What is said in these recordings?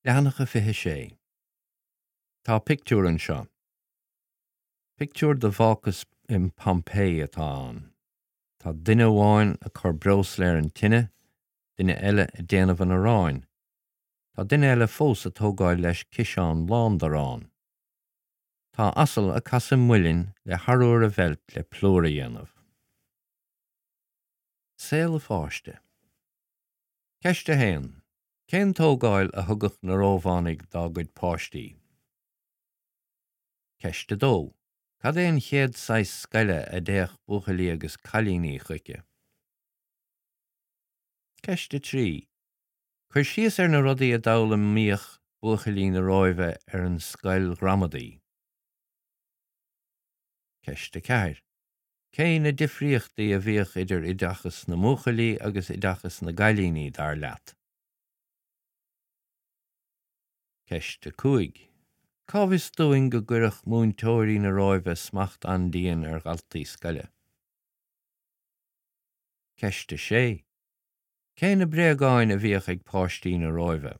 Leathanach a 26. Tá pictiúr anseo. Pictiúr de bhácás in Pompeii atá ann. Tá duine amháin ag cur breosla ar an tine, duine eile ag déanamh an aráin. Tá duine eile fós ag tógáil leis ciseán lán d'arán. Tá asal ag casadh muilinn le harbhar a mheilt le plúr a dhéanamh. Saol an pháiste. Ceist 1. Cén tógáil a thugadh na Rómhánaigh dá gcuid páistí? Ceist 2. Cad é an chéad saghas scoile a dtéadh buachaillí agus cailíní chuici? Ceist 3. Cuir síos ar na rudaí a d'fhoghlaimíodh buachaillí na Róimhe ar an scoil ghramadaí. Ceist 4. Cé na difríochtaí a bhíodh idir oideachas na mbuachaillí agus oideachas na gcailíní, dar leat? Ceist 5. Cá bhfios dúinn go gcuireadh múinteoirí na Róimhe smacht an-dian ar dhaltaí scoile? Ceist 6. Cé na bréagáin a bhíodh ag páistí na Róimhe?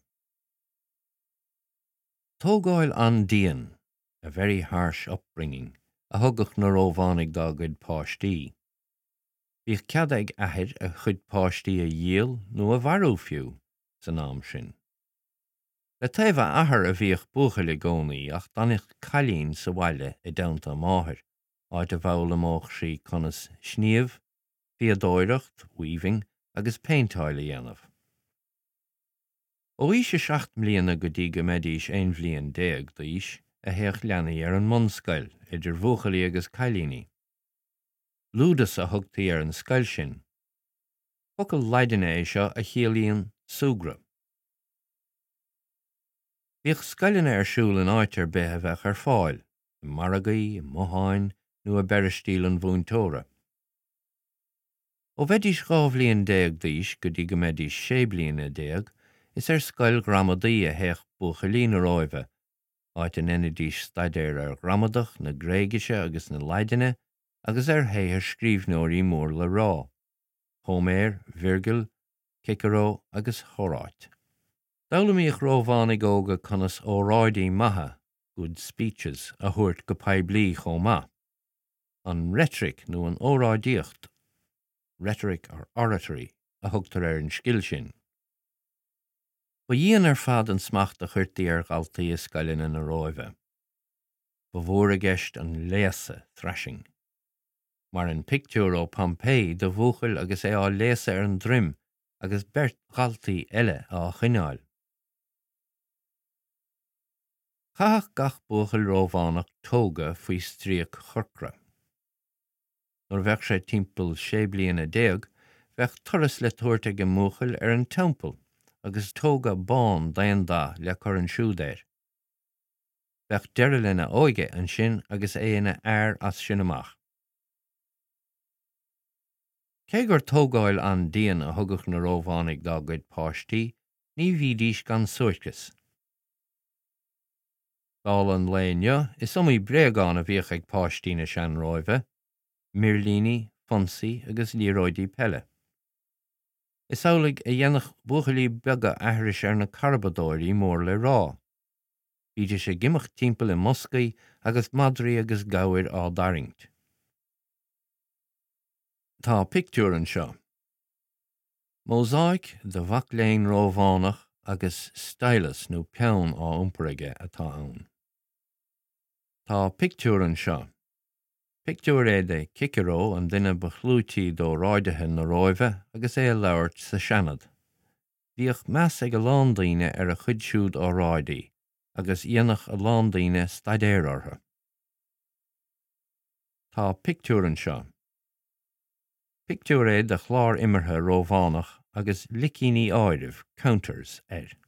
Tógáil an-dian, a very harsh upbringing, a thugadh na Rómhánaigh dá gcuid páistí. Bhíodh cead ag athair a chuid páistí a dhíol nó a mharú fiú, san am sin. Le taobh a athar a bhíodh buachaill i gcónaí ach d'fhanadh cailín sa bhaile i dteannta a máthar, áit a bhfoghlaimeodh sí conas sníomh, fíodóireacht, weaving, agus péinteáil a dhéanamh. Ó aois a 7 mbliana go dtí go mbeidís 11 bhliain d'aois a théadh leanaí ar an mbunscoil, idir bhuachaillí agus cailíní. Ludus a thugtaí ar an scoil sin. Focal Laidine é seo a chiallaíonn súgradh. Bhíodh scoileanna ar siúl in áit ar bith a bheadh ar fáil, i margaí, i mbotháin nó i bpeiristíl an mhúinteora. Ó bheidís 12 bhliain d'aois go dtí go mbeidís 16 bliana, is ar scoil ghramadaí a théadh buachaillí na Róimhe, áit a ndeinidís staidéar ar ghramadach na Gréigise agus na Laidine agus ar shaothar scríbhneoirí mór le rá, Hóiméar, Virgil, Cicearó agus Hóráit. D'fhoghlaimíodh Rómhánaigh óga conas óráidí maithe, good speeches, a thabhairt go poiblí chomh maith. An reitric nó an óráidíocht, rhetoric or oratory, a thugtar ar an scil sin. Ba dhian ar fad an smacht a chuirtí ar dhaltaí i scoileanna na Róimhe. Ba mhór i gceist an léasadh, thrashing. Mar an pictiúr ó Pompeii de bhuachaill agus é á léasadh ar an droim agus beirt dhaltaí eile á choinneáil. Chaitheadh gach buachaill Rómhánach toga faoi stríoc chorcra. Nuair a bheadh sé timpeall 16 bliana, bheadh turas le tabhairt ag an mbuachaill ar an teampall agus toga bán d'aon dath le cur ansiúd air. Bheadh deireadh lena óige ansin agus é ina fhear as sin amach. Cé gur tógáil an-dian a thugadh na Rómhánaigh dá gcuid páistí, ní bhídís gan suairceas. Dála an lae inniu, is iomaí bréagán a bhíodh ag páistí na sean-Róimhe, mirlíní, fonsaí agus liathróidí peile. Is amhlaidh a dhéanadh buachaillí beaga aithris ar na carbadóirí mór le rá. Bhídís ag imeacht timpeall i mboscaí agus madraí agus gabhair á dtarraingt. Tá pictiúr anseo. Mósáic de mhac léinn Rómhánach agus stylus nó peann á iompar aige atá ann. Tá pictiúr anseo. Pictiúr é de Cicearó, an duine ba chlúití d'óráidithe na Róimhe agus é ag labhairt sa Seanad. Bhíodh meas ag a lán daoine ar a chuid siúd óráidí agus dhéanadh a lán daoine staidéar orthu. Tá pictiúr anseo. Pictiúr é de chlár imeartha Rómhánach agus licíní áirimh, counters, air.